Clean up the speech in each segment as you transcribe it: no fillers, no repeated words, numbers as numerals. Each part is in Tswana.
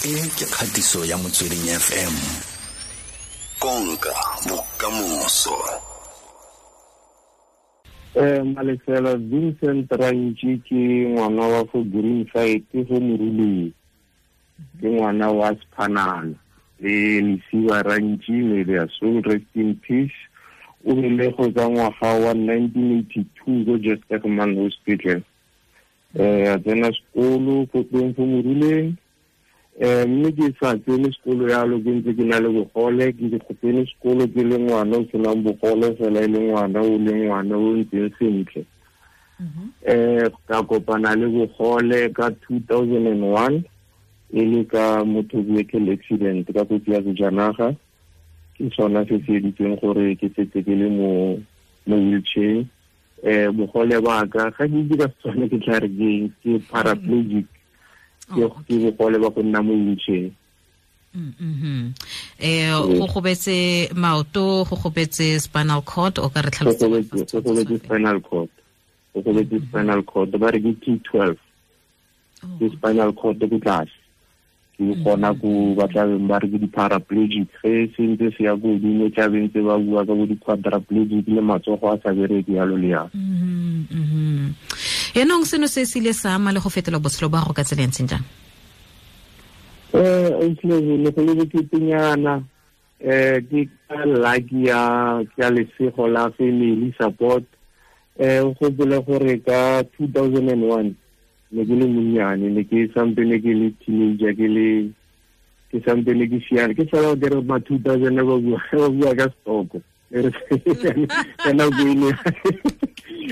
E ke kgatiso ya Motsweding FM. Konka bokamoso. Malesela Vincent Rantši ke ngwana wa fo Green Side fo Moruleng. Ke ngwana wa Sephanana le Lesiba Rantši, may their soul rest in peace. O belegwe ka ngwaga wa 1982 ko Jesterman Hospital. A tsena sekolo ko teng fo Moruleng. Mme ke sa tsene sekolo yalo, ke ntse ke na le bogole, ke tsene sekolo ke le ngwana o senang bogole fela e le ngwana o le ngwana o ntseng sentle. Ka kopana le bogole ka 2001 e le ka motor vehicle accident, ka kotsi ya sejanaga. Ke sona se se editseng gore ke setse ke le mo wheelchair. Bogole ba ka ga ke itse ka Setswana ke tla re ke ke paraplegic. Ke bogole ba go nna mo wheelchair. Go gobetse maoto, go gobetse spinal cord, o ka re tlhalosetsa? Go gobetse spinal cord. Go gobetse spinal cord, ba re ke T12. Ke spinal cord ko tlase. Ke gona ko ba tla beng ba re ke di-paraplegic. Ge se ntse se ya ko godimo, tla beng tse ba bua ka bo di-quadriplegic le matsogo a sa bereke yalo le yalo. Yaanong seno se se ile sa ama le go fetola botshelo ba gago ka tsela e ntseng jang? Ne go le boketenyana. Ke ka lucky ya lesego la family support. O gopole gore ka 2001 ne ke le monnyane, ne ke sampene ke le teenager, ke sampene ke siana, ke sala ke re ma 2000 ba bua ka stoko.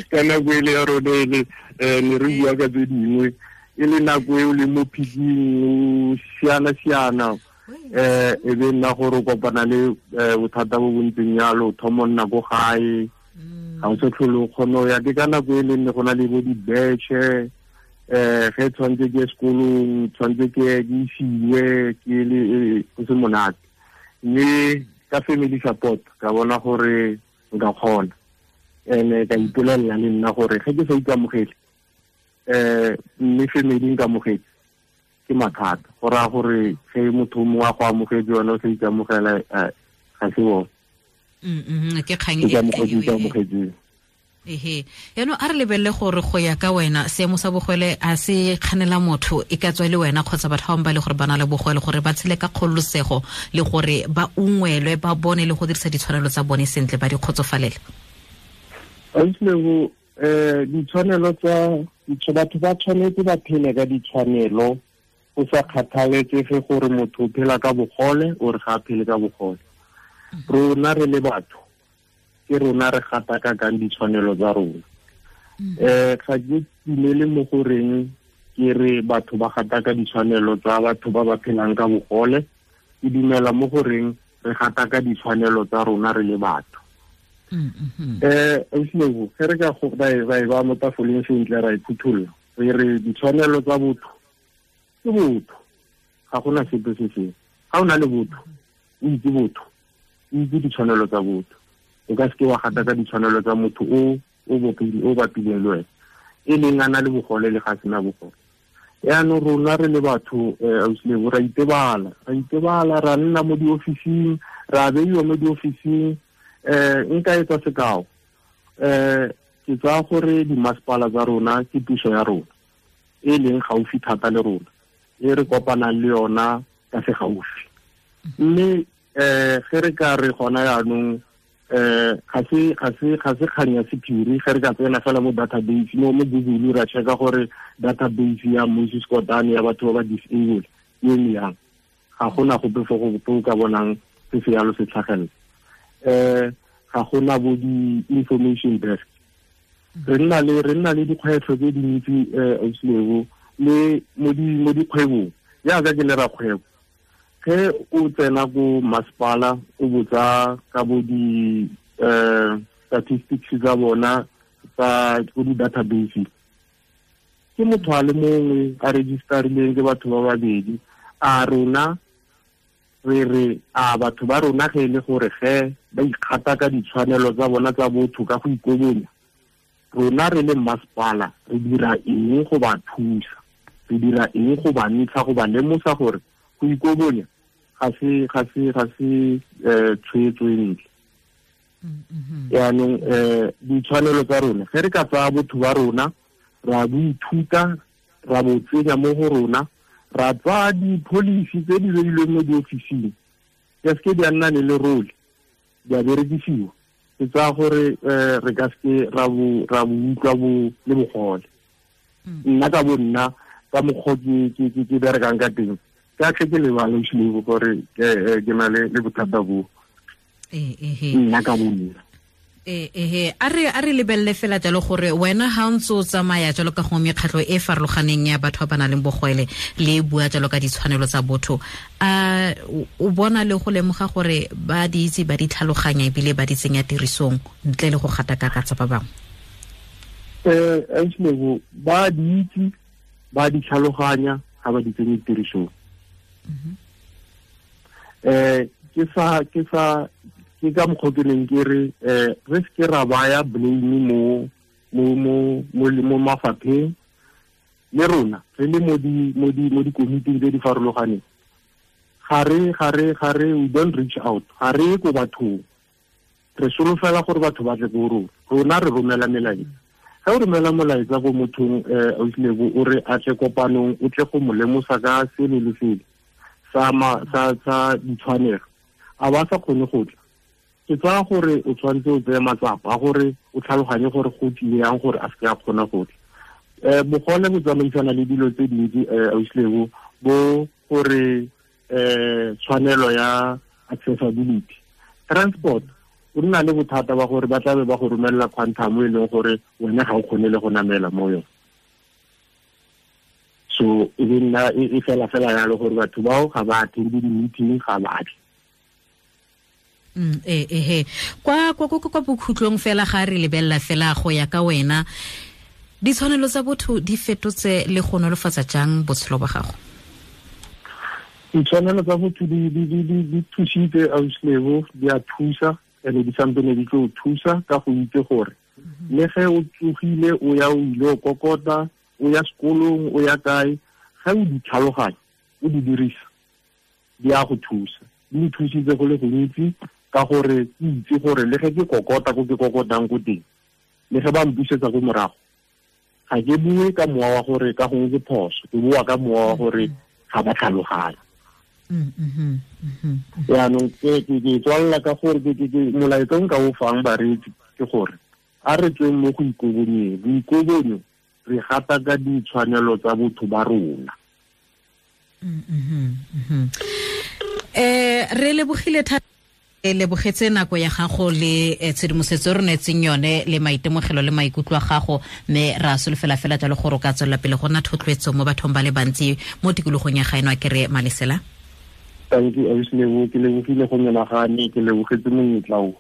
Ka nako ele ya rona ele, ne re bua ka tse dingwe, e le nako eo le mo phiking, o siana-siana. E be nna gore o kopana le bothata bo bontseng yalo, o thoma nna ko gae, ga o se tlhole o kgone ho ya. Ke ka nako e leng ne go na le bo dibetšhe, ge tshwanetse ke ye sekolong, tshwanetse ke isiwe, ke le go se monate. Mme ka family support ka bona gore nka kgona. Ene ka ipolelela le nna gore ge ke sa ikamogele, mme family nkamogetse, ke mathata. Go raya gore ge motho mongwe a go amogetse wena o sa ikamogela, ga se bone. Ke kgang e ikamogetseng. Ehe, yaanong a re lebelele gore go ya ka wena seemo sa bogole a se kganela motho e ka tswa le wena kgotsa batho ba bangwe ba le gore ba na le bogole gore ba tshele ka kgololosego le gore ba ungwelwe, ba bone le go dirisa ditshwanelo tsa bone sentle, ba di kgotsofalele. Ausi, ditshwanelo tsa batho ba tshwanetse ba phele ka ditshwanelo, go sa kgathaletsege gore motho o phela ka bogole or ga a phele ka bogole. Rona re le batho, ke rona re gatakakang ditshwanelo tsa rona. Ga ke dumele mo goreng ke re batho ba gataka ditshwanelo tsa batho ba ba phelang ka bogole. Ke dumela mo goreng re gataka ditshwanelo tsa rona re le batho. Ausi, ge re ka ra e ba mo tafoleng sentle, ra e phuthulla, re re ditshwanelo tsa botho ke botho, ga gona sepe se sengwe. Ga o na le botho, o itse botho, o itse ditshwanelo tsa botho. O ka seke wa gataka ditshwanelo tsa motho o o bapileng le wena, e leng a na le bogole le ga sena bogole. Yaanong rona re le batho, ausi, ra itebala, ra nna mo diofising, ra beiwa mo diofising. Nka etsa sekao, ke tsaya gore dimasepala tsa rona ke puso ya rona e leng gaufi thata le rona, e re kopanang le yona ka se gaufi. Mme ge re ka re gona yaanong, ga se kgang ya sephiri, ge re ka tsena fela mo database, mo Google ra checka gore database ya Moses Kotane ya batho ba ba disabled e eme yang, ga gona gope fo go ka bonang se se yalo se tlhagelela. Ga gona bo di-information desk. Re nna le dikgwetlho tse dintsi, ausi Lebo, le mo dikgwebong. Jaaka ke le rakgwebo, ge o tsena ko masepala o botsa ka bo di statistics tsa bona tsa ko di-database, ke motho a le mongwe a registerileng ke batho ba babedi. A rona re re a batho ba rona ge e le gore ge ba ikgata ka ditshwanelo tsa bona tsa botho ka go ikobonya, rona re le masepala re dira eng go ba thusa, re dira eng go ba ntsha, go ba lemosa gore Go ikobonya ga se tshwetso e ntle. Yaanong ditshwanelo tsa rona, ge re ka tsaya botho ba rona ra bo ithuta, ra bo tsenya mo go rona, ra tsaya di-policy tse di beilweng mo diofising, di a seke di a nna le lerole, di a berekisiwa. Ke tsaya gore re ka seke ra bo utlwa le bogole. Nna ka bo nna ka mokgwa ke berekang ka teng, ka tle ke lebale Slebo gore ke na le bothata bo. Nna ka bo nna. A re lebelele fela jalo gore wena ha o ntse o tsamaya jalo ka gongwe mekgatlho e farologaneng ya batho ba ba nang le bogwele le bua jalo ka ditshwanelo tsa botho, a o bona le go lemoga gore ba di itse, ba di tlhaloganya ebile ba di tsenya tirisong ntle le go gatakaka tsa ba bangwe? Slebo, ba di itse, ba di tlhaloganya, ga ba di tsenye tirisong. Ke ka mokgwa ke neng ke re re seke ra baya blame mo mafapheng, le rona re le mo dikomiting tse di farologaneng. Ga re we don't reach out, ga re ko bathong, re solofela gore batho ba tle ko rona. Rona re romela melaetsa. Ga o romela molaetsa ko mothong, Ausilebo, o re a tle kopanong, o tle go mo lemosa ka sele le sele sa ditshwanelo, a ba sa kgone go tla, ke tsaya gore o tshwanetse o tseye matsapa a gore o tlhaloganye gore go tlile yang gore a seke a kgona go tla. Bogole bo tsamaisana le dilo tse dintsi, Ausilebo, bo gore tshwanelo ya accessibility. Transport, o nna le bothata ba gore ba tlabe ba go romelela quantum e leng gore wena ga o kgone le go namela mo yone. So e be nna e fela fela yalo gore batho bao ga ba attend di-meeting, ga ba tle. Kwa bokhutlong fela ga re lebelela fela go ya ka wena, ditshwanelo tsa botho di fetotse le go nolofatsa jang botshelo ba gago? Ditshwanelo tsa botho di thusitse, Ausilebo, di a thusa, ene di sampene di tlo thusa ka go itse gore le ge o tsogile o ya o ile o kokota, o ya sekolong, o ya kae, ge o di tlhaloganya, o di dirisa, di a go thusa. Di nthusitse go le gontsi ka gore ke itse gore le ge ke kokota ko ke kokotang ko teng, le ge ba mpusetsa ko morago, ga ke bue ka mowa wa gore ka gongwe ke phoso, ke bua ka mowa wa gore ga ba tlhaloganya. Yaanong ke tswalela ka gore molaetsa o nka o fang bareetsi ke gore a re tsweng mo go ikobonyeng. Boikobonyo re gata ka ditshwanelo tsa botho ba rona. Re lebogile thata, lebogetse nako ya gago le tshedimosetso re neetseng yone le maitemogelo le maikutlo a gago, mme ra solofela fela jalo gore o ka tswelela pele go nna thotloetso mo bathong ba le bantsi mo tikologong ya gaeno. A ke re Malesela? Thank you, Ausilebo, ke lebogile go menagane, ke lebogetse monyetla o.